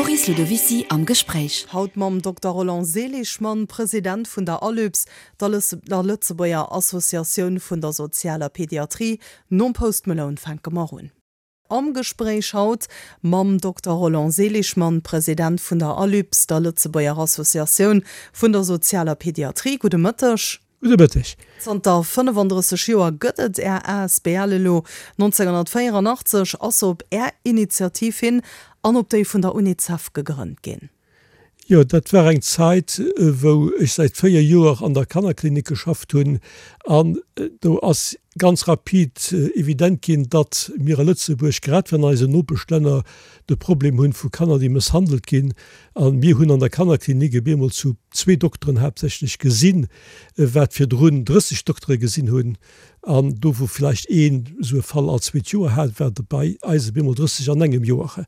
D'Coris Ludovicy am Gespréich. Haut mam Dokter Roland Seligmann, President vun der ALUPS, der Lëtzebuerger Associatioun vun der sozialer Pediatrie. Nom Post Malone fänke mer un. Am Gespréich haut mam Dokter Roland Seligmann, President vun der ALUPS, der Lëtzebuerger Associatioun vun der sozialer Pediatrie. Gudde Mëtteg. Gudde Mëtteg. Zanter 35 Joer gëtt et Är asbl elo. 1984 ass se op Är Initiativ hin an op déi vun der Unicef gegrënnt ginn. Jo, dat war eng Zait, wou ech säit 4 Joer an der Kannerklinik geschafft hunn an do ass ganz rapid evident ginn, datt mir a Lëtzebuerg, grad wéi an eisen Nopeschlänner, de Problem hunn vu Kanner, déi mësshandelt ginn. A mir hunn an der Kannerklinik op eemol zu zwee Dokteren haaptsächlech gesinn, wat virdrun 30 Doktere gesinn hunn. An do, wou vläicht een esou e Fall all zweet Joer hat, war et bei eis op eemol 30 an engem Joer.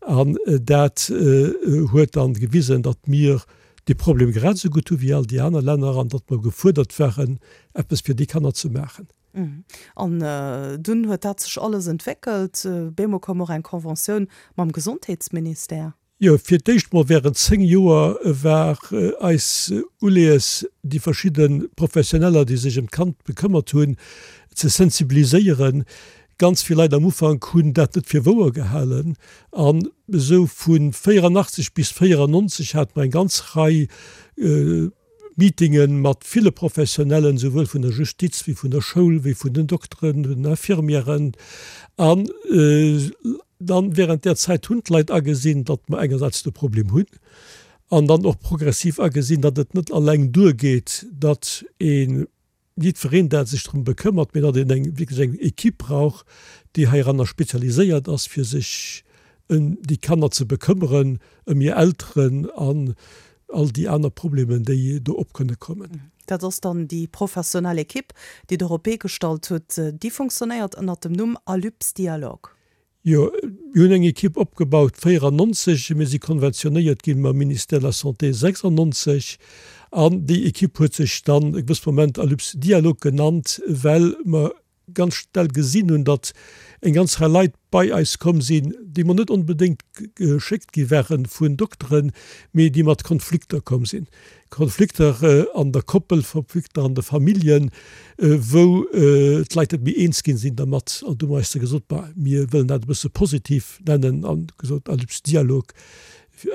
An dat huet dann gewisen, datt mir dee Problem grad esou gutt hu wéi all déi aner Länner an datt mer gefuerdert waren, eppes fir déi Kanner ze maachen. An dunn huet dat sech alles entwéckelt. Bemol koum och eng Conventioun mam Gesondheetsministère. Jo, fir d'éischt mol während 10 Joer war eis Uleeës, déi verschidde Professioneller, déi sech ëm d'Kand bekëmmert hunn, ze sensibiliséieren. Ganz vill Leit am Ufank hunn dat net fir wouer gehalen. An esou vu 84 bis 94 hate mer eng ganz Rei Meetinge mat ville Professionellen, souwuel vun der Justiz wéi vun der Schoul, wéi vun den Dokteren, den Infirmièren. An dann während där Zäit hunn d'Leit agesinn, datt mer engersäits de Problem hunn an dann och progressiv agesinn, datt et net alleng duergeet, datt ee jiddwereen dat sech drëm bekëmmert, mee datt een eng wierklech eng Equipe brauch, déi heiranner spezialiséiert ass, fir sech ëm déi Kanner ze bekëmmeren, ëm hir Elteren an all déi aner Problemen, déi do op kënne kommen. Dat ass dann déi professionell Equipe, déi Der op d'Bee gestallt hutt. Déi funktionéiert ënnert dem Numm Alyps Dialogue. Jo, mir hunn eng Equipe opgebaut 94, mir si konventionéiert gi mam Ministère de la Santé 96 an déi Equipe huet sech dann e gewësse Moment Alyps Dialogue genannt, well mer ganz schnell gesinn hunn, datt eng ganz Rei Leit bei eis komm sinn, déi mer net onbedéngt geschéckt gi ware vun Dokteren, mee déi mat Konflikter komm sinn. Konflikter an der Koppel, Konflikter an de Familljen, wou d'Leit net méi eens ginn sinn dermat. An du hu mer eis da gesot, bah, mir wëllen dat e bësse positiv nennen an gesot Alyps Dialog.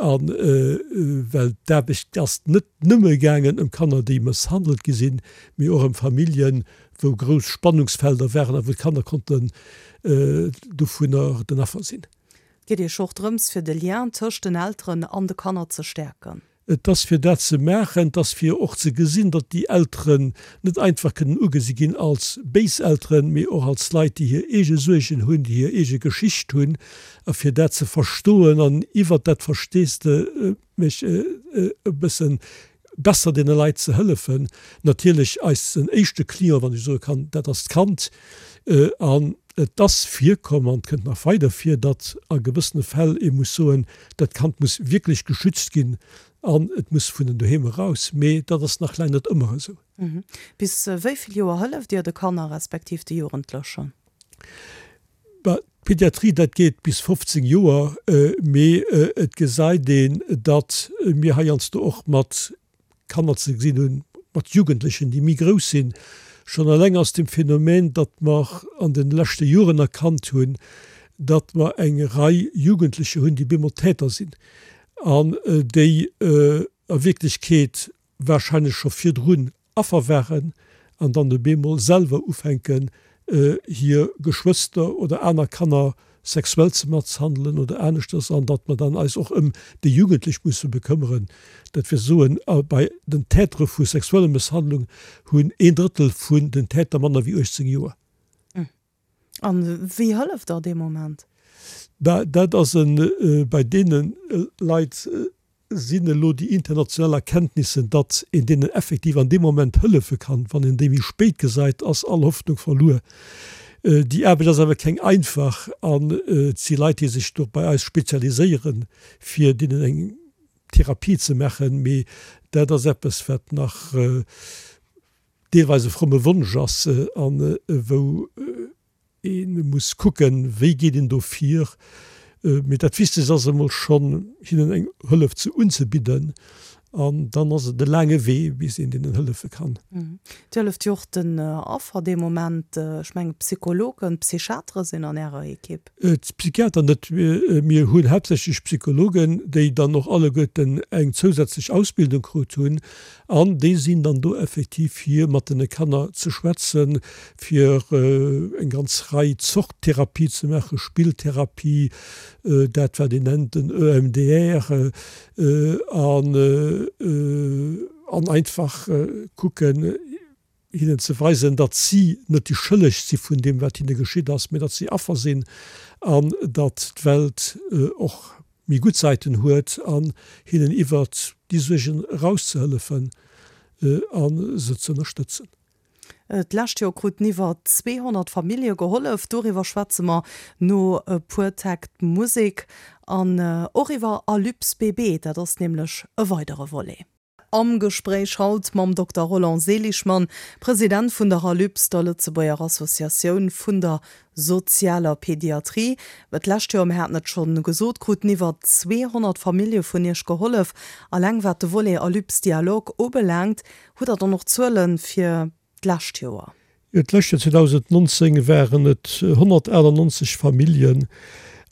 A well d'Aarbecht ass net nëmme gaangen ëm Kanner, déi mësshandelt gi sinn, mee och ëm Familljen, wou grouss Spannungsfelder waren a wou d'Kanner konnten dovunner den Affer sinn. Et geet Iech och drëms, fir de Lien tëscht den Elteren an de Kanner ze stäerken. Et ass fir dat ze maachen, et ass fir och ze gesinn, datt déi Elteren net einfach kënnen ugesi ginn als béis Elteren, mee och als Leit, déi hir eege Suergen hunn, déi hir eege Geschicht hunn, a fir dat ze verstoen an iwwert dat Versteesdemech e bësse besser deene Leit ze hëllefen. Natierlech eisen éischte Client, wann ech soe kann, dat ass d'Kand. An et ass virkomm an et kënnt nach weider vir, datt a gewëssene Fäll ee muss soen, Dat Kand muss wierklech geschützt ginn an et muss vun den Doheem eraus. Mee dat ass nach laang net ëmmer esou. Bis wéi vill Joer hëlleft Dir de Kanner respektiv de Jugendlechen? Bah, d'Pediatrie, dat geet bis 15 Joer. Mee et gesäit een, datt mir heiansdo och mat Kanner ze gesinn hunn, mat Jugendlechen, déi méi grouss sinn, schonn eleng aus dem Phänomen, datt mer an de leschte Joren erkannt hunn, datt mer eng Rei Jugendlecher hunn, déi bemol Täter sinn an déi a Wierklechkeet wahrscheinlech scho virdrun Affer waren an dann op eemol selwer ufänken, hir Geschwëster oder aner Kanner sexuell ze masshandelen oder aneschters, an datt mer dann eis och ëm déi Jugendlech musse bekëmmeren. Dat wëll soen, bei den Tätere vu sexueller Mësshandlung hunn een Drëttel vun den Täter manner wéi 18 Joer. A wéi hëlleft Der dee Moment? Bah, dat ass e bei deene Leit Sinn elo déi international Erkenntnissen, datt een deenen effektiv an deem Moment hëllefe kann. Wann een déi méi spéit gesäit, ass all Hoffnung verluer. Déi Aarbecht ass awer keng einfach an et si Leit, déi sech do bei eis spezialiséieren, fir deenen eng Therapie ze maachen. Mee dat ass eppes, wat nach deelweis e fromme Wonsch ass a wou, Ee muss kucken, wéi geet een do vir. Mee dat Wichtegst ass emol schonn, hinnen eng Hëllef ze unzebidden. An dann ass et e laange Wee, bis een deenen hëllefe kann. Dir hëlleft jo och den Affer dee Moment. Ech mengen, Psychologen, Psychiatere sinn an Ärer Ekipp. D'Psychiater net. Mir hunn haaptsächlech Psychologen, déi dann och alleguerten eng zousätzlech Ausbildung krut hunn. An déi sinn dann do effektiv, fir mat den Kanner ze schwätzen, fir eng ganz Rei Zort Therapie ze maachen, Spilltherapie, dat wat een nennt den EMDR, an an einfach kucken, hinnen ze weisen, datt si net déi Schëlleg si vun deem, wat hinne geschitt ass, mee datt si Affer sinn an datt d'Welt och méi gutt Säiten huet an hinnen iwwert déi Suergen erauszehëllefen a se ze ënnerstëtzen. D'lescht Joer kruten iwwer 200 Famillje gehollef. Doriwwer schwätze mer no e puer Täkt Musek an och iwwer Alypse BB, dat ass nämlech e weidere Volet. Am Gespréich haut mam Dokter Roland Seligmann, President vun der Alypse, der Lëtzebuerger Associatioun vun der sozialer Pediatrie. D'lescht Joer, mir haten et scho gesot, kruten iwwer 200 Famillje vun Iech gehollef. Alleng wat de Volet Alypse Dialogue ubelaangt, Hutt Der dann och Zuele fir d'lescht Joer? Jo, d'lescht Joer 2019 waren et 198 Familljen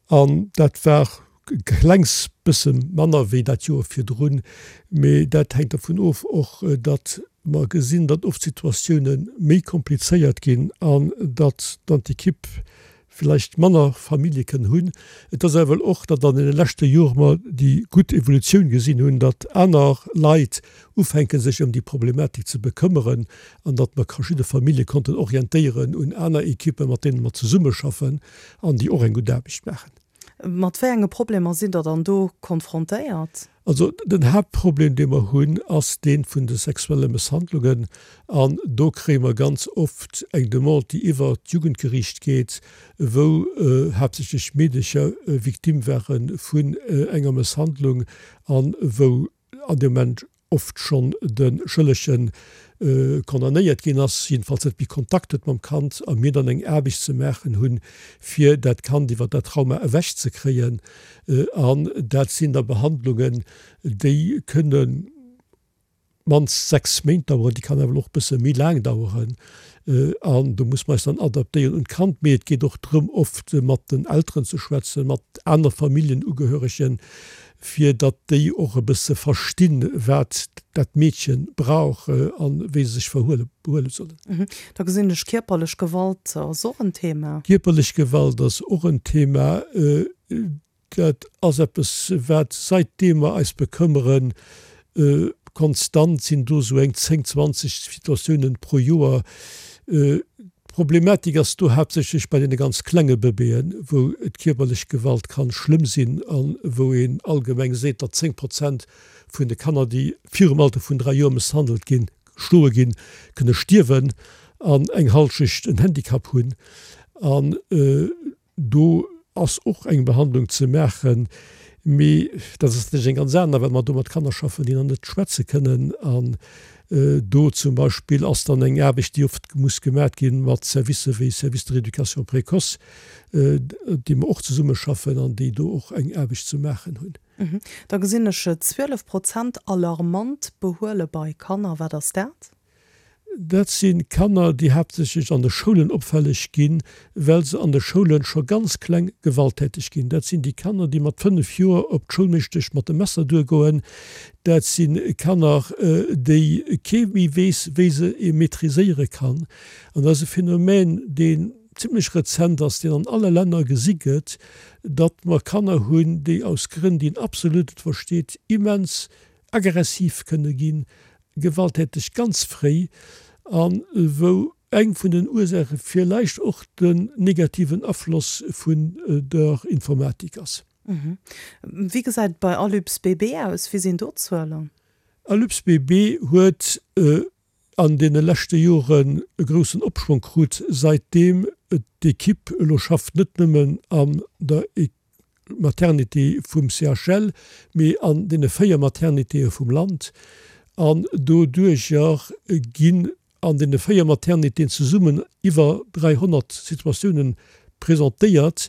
an dat war e klengs bësse manner wéi dat Joer virdrun. Mee dat hänkt dervun of och, datt mer gesinn, datt oft d'Situatioune méi komplizéiert ginn an datt dann d'Ekipp villäicht manner Famillje kënnen hunn. Et ass awer och, datt an deene leschte Jore mer déi gutt Evolutioun gesinn hunn, datt aner Leit ufänke sech ëm déi Problematik ze bekëmmeren an datt mer verschidde Famillje konnten orientéieren un aner Ekippen, mat deene mer zesummeschaffen an déi och eng gutt Aarbecht maachen. Mat wéi enge Problemer sidd Der dann do konfrontéiert? Also den Haaptproblem, dee mer hunn, ass dee vun de sexuelle Mësshandlungen. An do kréie mer ganz oft eng Demande, déi iwwer d'Jugendgeriicht geet, wou haaptsächlech Meedecher Victime ware vun enger Mësshandlung a wou an deem Moment oft schonn de Schëllege condamnéiert ginn ass, jiddefalls net méi Kontakt huet mam Kand, a mir dann eng Aarbecht ze maachen hunn, fir dat Kand iwwer dat Trauma ewech ze kréien. An dat sinn da Behandlungen, déi kënne mannst 6 Méint daueren, déi kann awer och e bësse méi laang daueren. An do muss mer eis dann adaptéieren un d'Kand. Mee et geet och drëm, oft mat den Elteren ze schwätzen, mat aner Familljenugehöregen, fir datt déi och e bësse verstinn, wat dat Meedche brauch a wéi se sech verhuele behuele sollen. Da gesinn ech, kierperlech Gewalt ass och en Thema. Kierperlech Gewalt ass och en Thema. Dat ass eppes, wat saitdeem mer eis bekëmmeren, konstant sinn do esou eng 10, 20 Situatiounen pro Joer. D'Problematik ass do haaptsächlech bei deene ganz klenge Bëbeeën, wou d'kierperlech Gewalt kann schlëmm sinn a wou een allgemeng seet, datt 10 Prozent vun de Kanner, déi virum Alter vun 3 Joer mësshandelt ginn, geschloe ginn, kënne stierwen an eng Halschecht en Handicap hunn. An Do ass och eng Behandlung ze maachen, mee dat ass natierlech eng ganz aner, well mer do mat Kanner schaffen, déi nach net schwätze kënnen. An do zum Beispill ass dann eng Aarbecht, déi oft muss gemat gi mat Servicë wéi Service de rééducation précoce, déi mer och zesummeschaffen an déi do och eng Aarbecht ze maachen hunn. Da gesinn ech 12 Prozent alarmant Behuele bei Kanner. Wat ass dat? Dat si Kanner, déi haaptsächlech an de Schoulen opfälleg ginn, well se an de Schoule scho ganz kleng gewalttäteg ginn. Dat sinn déi Kanner, déi mat 5 Joer op d'Schoulmeeschtesch mat dem Messer duergoen. Dat si Kanner, déi kee méi weess, wéi se ee maîtriséiere kann. An dat ass e Phänomen, deen zimlech rezent ass, deen an alle Länner gesi gëtt, datt mer Kanner hunn, déi aus Grënn, déi een absolut net versteet, immens aggressiv kënne ginn, gewalttäteg ganz fréi a wou eng vun den Ursaache villäicht och den negativen Afloss vun der Informatik ass. Wéi gesäit et bei Alyps BB aus? Wéi sinn do d'Zuelen? Alyps BB huet an deene leschte Joren e groussen Opschwong krut, säitdeem d'Ekipp elo schafft, net nëmmen an der Maternité vum CHL, mee an deene 4 Maternitéë vum Land. An doduerjer ginn an deene 4 Maternitéen zesummen iwwer 300 Situatiounen presentéiert,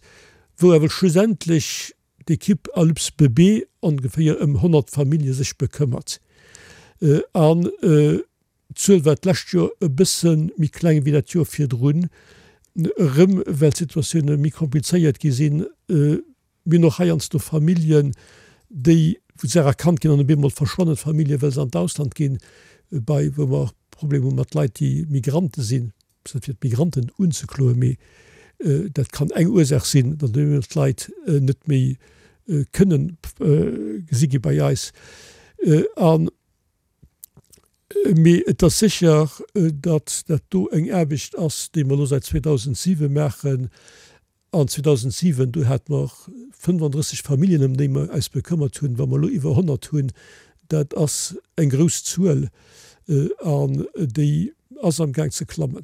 wou awer schlussendlech. d'Ekipp Alyps Bébé ongeféier ëm 100 Famillje sech bekëmmert. An d'Zuel war d'lescht Joer e bësse méi kleng wéi dat Joer virdrun, erëm well d'Situatioune méi komplizéiert gi sinn. Mir hunn och heiansdo Familljen, déi, wou d'Saach erkannt ginn an op eemol verschwannen d'Famillje well se an d'Ausland ginn, bei wou mer och Problemer hu mat Leit, déi Migrante sinn. Ass net fir d'Migranten unzekloen, mee dat kann eng Ursaach sinn, datt op eemol d'Leit net méi kënnen gesi gi bei eis. An mee et ass sécher, datt dat do eng Aarbecht ass, déi mer elo säit 2007 maachen, An 2007, do hate mer 35 Familljen, ëm déi mer eis bekëmmert hunn. Wa mer elo iwwer 100 hunn, dat ass eng grouss Zuel an déi ass amgaang ze klammen.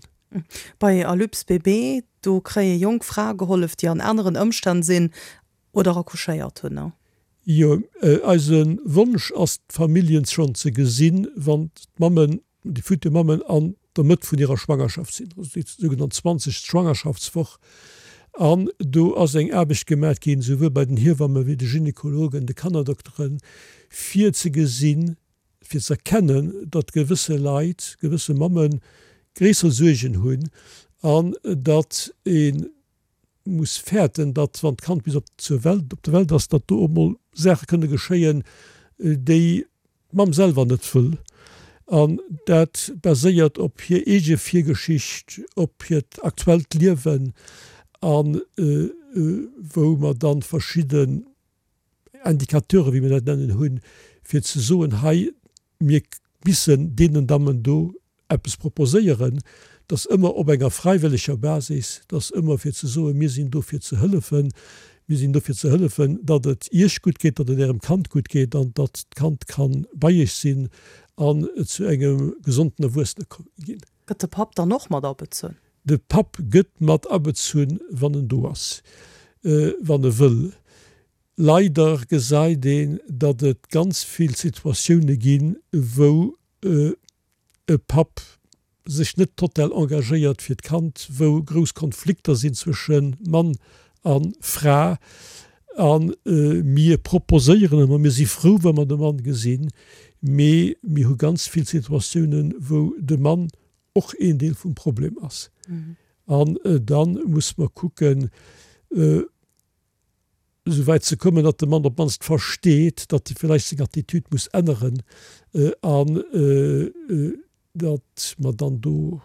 Bei Alyps Bébé, do kréie jonk Frae gehollef, déi an aneren Ëmstänn sinn oder accouchéiert hunn. Jo, eise Wonsch ass d'Familljen schonn ze gesinn, wann d'Mammen déi futur Mammen an der Mëtt vun hirer Schwangerschaft sinn, also déi sougenannt 20. Schwangerschaftswoch. An do ass eng Aarbecht gemat ginn, souwuel bei den Hiewamme wéi de Gynekologen, de Kannerdokteren, fir ze gesinn, fir ze erkennen, datt gewësse Leit, gewësse Mamme gréisser Suergen hunn an datt ee muss fäerten, datt wann d'Kand bis op zur Welt, op der Welt ass, datt do op emol Saache kënne geschéien, déi d'Mamm selwer net wëll. An dat baséiert op hir eege Virgeschicht, op hiert aktuellt Liewen a wou mer dann verschidden Indicateuren, wéi mir dat nennen, hunn, fir ze soen, hei, Mir missen deenen Dammen do eppes proposéieren, dass ëmmer op enger fräiwëlleger Basis, dass ëmmer fir ze soen, mir sinn do fir ze hëllefen, mir sinn do fir ze hëllefen, datt et Iech gutt geet, datt et Ärem Kand gutt geet an datt d'Kand ka bei Iech sinn an zu engem gesonden Erwuessene ginn. Gëtt de Papp dann och mat abezunn? De Papp gëtt mat abezunn, wann en do ass, wann e wëll. Leider gesäit een, datt et ganz vill Situatioune ginn, wou e Papp sech net total engagéiert fir d'Kand, wou grouss Konflikter sinn zwësche Mann a Fra. A mir proposéieren ëmmer, mir si frou, wa mer de Mann gesinn, mee mir hu ganz vill Situatiounen, wou de Mann och een Deel vum Problem ass. An da muss mer kucken, esou wäit ze kommen, datt de Mann op d'mannst versteet, datt e villäicht seng Attitude muss änneren an datt mer dann do,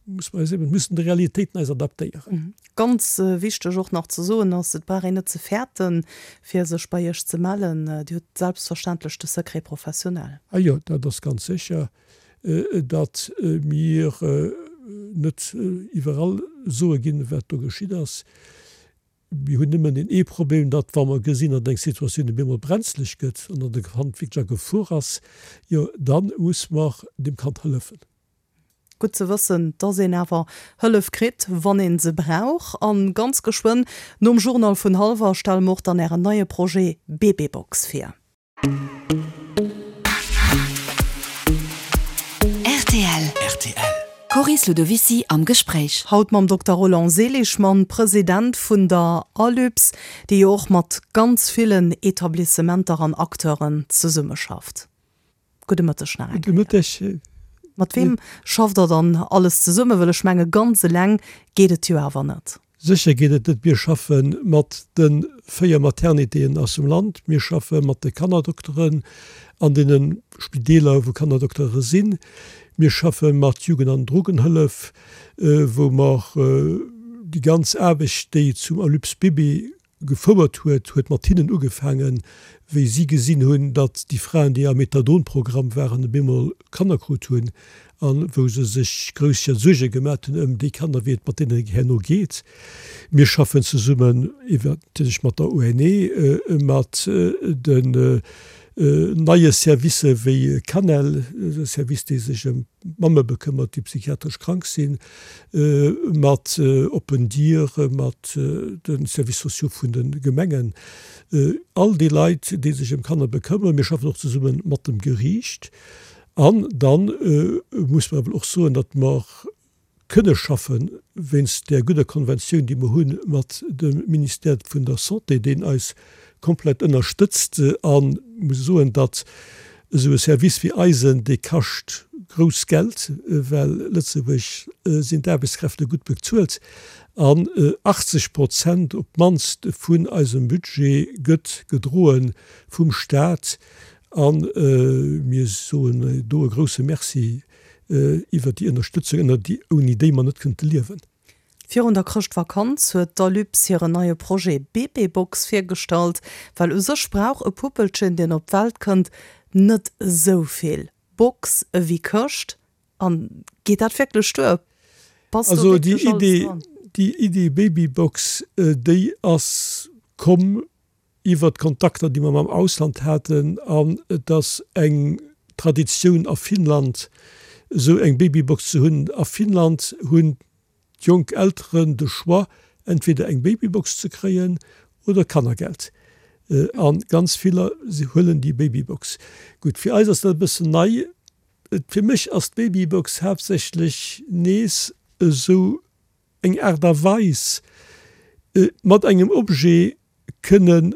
muss mer eis eben, müssen de Realitéiten eis adaptéieren. Ganz wichteg och nach ze soen ass, et brauch een net ze fäerten, fir sech bei Iech ze mellen. Dir hutt selbstverständlech de Secret professionnel. Ah jo, dat ass ganz sécher, datt mir net iwwerall soe ginn, wat do geschitt ass. Mir hunn nëmmen deen ee Problem, datt wa mer gesinn, datt eng Situatioun op eemol brenzlech gëtt an datt e Kand wierklech a Gefor ass, jo da muss mer deem Kand hëllefen. Gutt ze wëssen, datt een awer Hëllef kritt, wann ee se brauch. A ganz geschwënn nom Journal vun hallwer stelle mer och dann Ären neie Projet Bébébox vir. Rtl. Rtl. Coris Ludovicy am Gespréich. Haut mam Dokter Roland Seligmann, President vun der ALUPS, déi jo och mat ganz villen Etablissementer an Acteuren zesummeschafft. Gudde Mëtteg nach eng Kéier. Gudde Mëtteg. Mat weem schafft Der dann alles zesummen? Well ech menge ganz eleng geet et jo awer net. Sécher geet et net. Mir schaffe mat de 4 Maternitéen aus dem Land. Mir schaffe mat de Kannerdokteren an deene Spideeler, wou Kannerdoktere sinn. Mir schaffe mat Jugend an Drogenhëllef, wou mer déi ganz Aarbecht, déi zum Alyps Bébé gefouert huet, huet mat hinnen ugefaangen, wéi si gesinn hunn, datt déi Fraen, déi am Methadon-Programm waren, op eemol Kanner krut hunn a wou se sech grouss Suerge gemat hunn ëm déi Kanner, wéi et mat deenen herno geet. Mir schaffen zesummen iwwer natierlech mat der ONE, mat den neie Servicë wéi Canel, e Service, dee sech ëm d'Mamme bekëmmert, déi psychiatresch krank sinn, mat Open Dier, mat de Services sociaux vun de Gemengen, all déi Leit, déi sech ëm Kanner bekëmmeren. Mir schaffen och zesumme mat dem Geriicht. An da muss mer awer och soen, datt mer. kënne schaffen, wéinst där gudder Konventioun, déi mer hu mat dem Ministère vun der Santé, deen eis komplett ënnerstëtzt. A muss soen, datt esou e Service wéi eisen, dee kascht grouss Geld, well Lëtzebuerg sinn d'Aarbechtskräfte gutt bezuelt an 80 Prozent op d'mannst vun eisem Budget gëtt gedroe vum Stat. A mir soen do e grouse Merci iwwert déi Ënnerstëtzung, ënner déi, ouni déi mer net kënnte liewen. Virun der Chrëschtvakanz huet d'Alypes hiren neie Projet Bébébox virgestallt. Well u sech brauch e Puppelchen, deen op d'Welt kënnt, net esou vill Box ewéi Këscht. An geet dat wierklech duer? Passt do wierklech alles dran? Also déi Idee Babybox, déi ass komm iwwert d'Kontakter, déi mer mam Ausland haten, an et ass eng Traditioun a Finnland, esou eng Babybox ze hunn. A Finnland hunn d'jonk Elteren de Choix, entweder eng Babybox ze kréien oder Kannergeld. A ganz viller huelen déi Babybox. Gutt, fir eis ass dat e bëssen nei. Fir mech ass d'Babybox haaptsächlech nees esou eng Aart a Weis, mat engem Objet kënne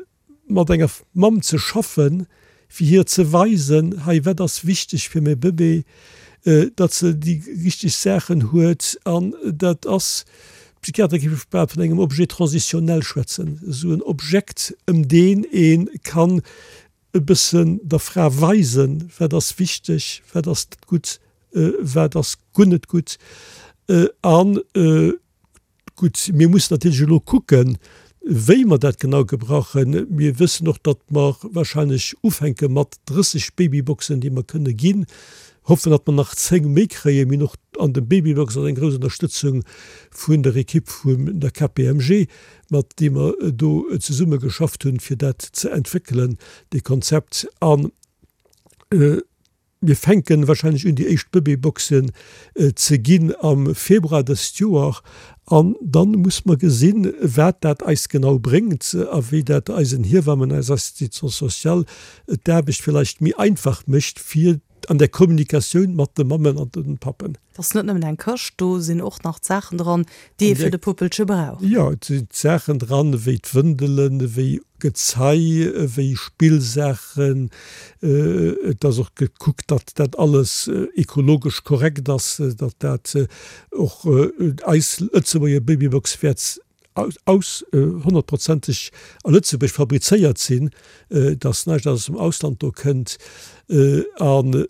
mat enger Mamm ze schaffen, fir hir ze weisen, hei wat ass wichteg fir mäi Bëbee, datt se déi richteg Saachen huet. An dat ass, d'Psychiater géife bal vun engem Objet transitionnel schwätzen, esou en Objekt, ëm deen ee kann e bëssen der Fra weisen, wat ass wichteg, wat ass gutt, wat ass guer net gutt. An Gutt, mir mussen natierlech elo kucken, wéi mer dat genau gebrauchen. Mir wëssen och, datt mer wahrscheinlech ufänke mat 30 Babyboxen, déi mer kënne ginn. Hoffen, datt mer nach 10 méi kréien. Mir hunn och an dem Babybox ass eng grouss Ënnerstëtzung vun der Ekipp vun der KPMG, mat deem mer do zesumme geschafft hunn, fir dat ze entwéckelen, dee Konzept. An Mir fänken wahrscheinlech un déi éischt Bëbeeboxen ze ginn am Februar dëst Joer an dann muss mer gesinn wat dat eis genau bréngt a wéi dat eisen Hiewammen, eiser Assistance sociale d'Aarbecht villeicht méi einfach mécht fir an der Kommunikatioun mat de Mammen an den Pappen. Et ass net nëmmen eng Këscht, do sinn och nach d'Saachen dran, déi ee fir de Puppelche brauch. Jo, et sinn d'Saachen dran, ewéi d'Wëndelen, ewéi Gezei, ewéi Spillsaachen. Et ass och gekuckt, datt dat alles ekologesch korrekt ass, datt dat och eis Lëtzebuerger Babybox wäert aus honnertprozenteg a Lëtzebuerg fabrizéiert sinn, datt näischt aus dem Ausland do kënnt. An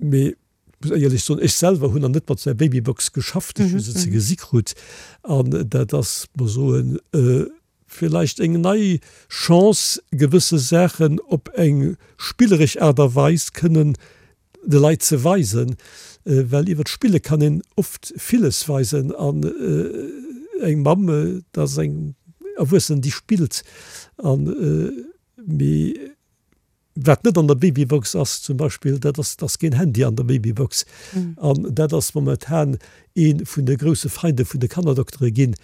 Mee ech muss éierlech soen, ech selwer hunn nach net mat esou enger Babybox geschafft. Ech hu se ze gesi krut an dat ass, mer soen, villäicht eng nei Chance, gewësse Saachen op eng spilleresch Aart a Weis kënnen de Leit ze weisen, well iwwer d'Spille kann een oft villes weisen an eng Mamm, dat ass eng Erwuessen, déi spillt an mee. Wat net an der Babybox ass zum Beispill, dat ass, et ass keen Handy an der Babybox. An dat ass momentan ee vun de grousse Feinde vun de Kannerdoktere ginn,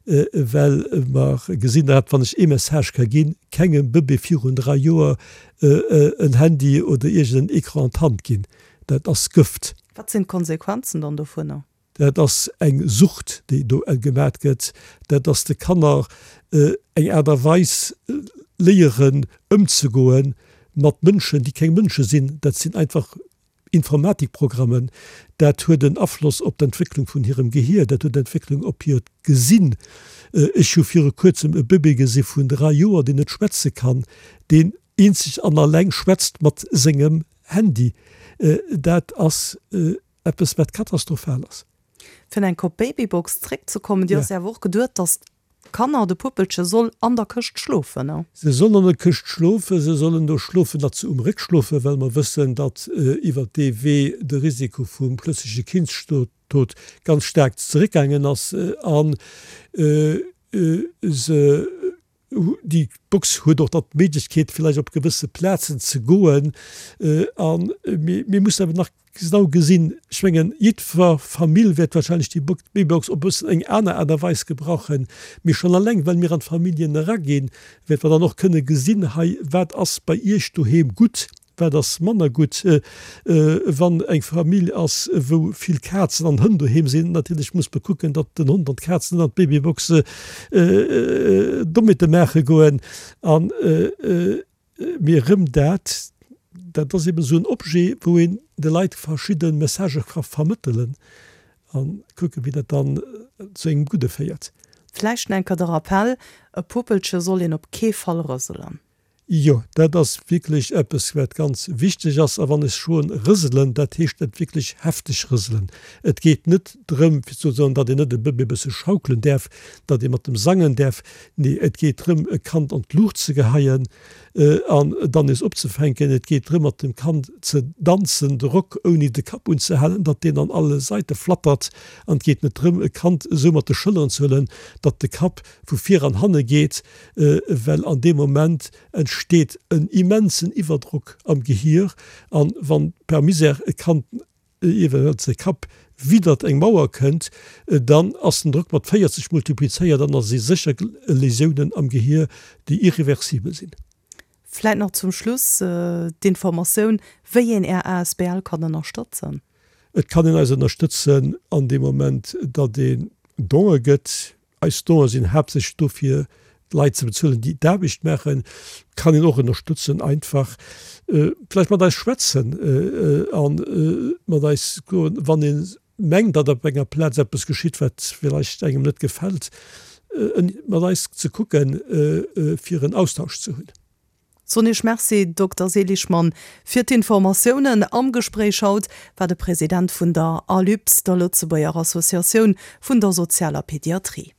well mer gesinn, dat wann ech ee Message ka ginn, kengem Bëbee virun 3 Joer en Handy oder iergend en Ecran an d'Hand ginn. Dat ass Gëft. Wat sinn d'Konsequenzen dann dovunner? Dat ass eng Sucht, déi do gemat gëtt. Dat ass de Kanner eng Aart a Weis léieren ëmzegoe mat Mënschen, déi keng Mënsche sinn. Dat sinn einfach Informatikprogrammen. Dat huet en Afloss op d'Entwécklung vun hirem Gehier, dat huet Entwécklung op hiert Gesinn. Ech hu viru kuerzem e Bëbee gesi vun 3 Joer, deen net schwätze kann, deen eenzeg an alleng schwätzt mat sengem Handy. Dat ass Eppes wat katastrophal ass. Fir enk op d'Babybox zréckzekommen, déi ass jo awer och geduet, dass d'Kanner, de Puppelche soll an der Këscht schlofen, ne? Se sollen an der Këscht schlofen, se sollen do schlofen, datt se um Réck schlofen, well mer wëssen, datt iwwert dee Wee de Risiko vum plötzleche Kindstod ganz staark zeréckgaangen ass an se Déi Box huet och dann d'Méiglechkeet, villäicht op gewësse Plazen ze goen. A mir mussen awer nach genau gesinn, ech mengen, jiddwer Famill wäert wahrscheinlech déi Babybox op e bëssen eng aner Aart a Weis gebrauchen. Mee schonn alleng, well mir an d'Familljen eraginn, wäerte mer dann och kënne gesinn, hei, wat ass bei Iech doheem gutt? wat ass manner gutt. Wann eng Famill ass, wou vill Kazen an Hënn doheem sinn, natierlech muss mer kucken, datt den Hond an d'Kaz net an d'Babybox Dommheete maache goen. An mee erëm dat, dat ass eben esou en Objet, wou een de Leit verschidde Messagë ka vermëttelen a kucken, wéi dat dann zu engem Gudde féiert. Vläicht nach eng Kéier de Rappell, E Puppelche soll een op kee Fall rëselen. Jo, dat ass wierklech eppes, wat ganz wichteg ass. A wann ech soen rëselen, dat heescht dat wierklech hefteg rëselen. Et geet net drëm, fir ze soen, datt een net e Bëbee e bësse schaukelen däerf, datt ee mat em sangen däerf. Nee, et geet drëm, e Kand an d'Luucht ze geheien an dann nees opzefänken. Et geet drëm, mat dem Kand ze danzen, de Rock ouni de Kapp unzehalen, datt deen an alle Saite flattert. An et geet net drëm, e Kand esou mat de Schëlleren ze huelen, datt de Kapp vu vir an hanne geet, well an deem Moment entsteet en immensen Iwwerdrock am Gehier an wann per Misère e Kand eventuell säi Kapp widdert eng Mauer kënnt, dann ass den Drock mat 40 multiplizéiert an da si sécher Lésiounen am Gehier, déi irreversibel sinn. Vläit nach zum Schluss d'Informatioun, wéi een Är asbl kann ënnerstëtzen. Et kann een eis ënnerstëtzen an deem Moment, datt een Donë gëtt. Eis Donë sinn haaptsächlech do fir d'Leit ze bezuelen, déi d'Aarbecht maachen. Kann een och ënnerstëtzen, einfach vläicht mat eis schwätzen a mat eis goen, wann ee mengt, datt op enger Plaz eppes geschitt, wat villäicht engem net gefält, mat eis ze kucken, fir en Austausch ze hunn. Soen Iech Merci, Dokter Seligmann, fir d'Informatiounen. Am Gespréich haut war de President vun der ALUPS, der Lëtzebuerger Associatioun vun der sozialer Pediatrie.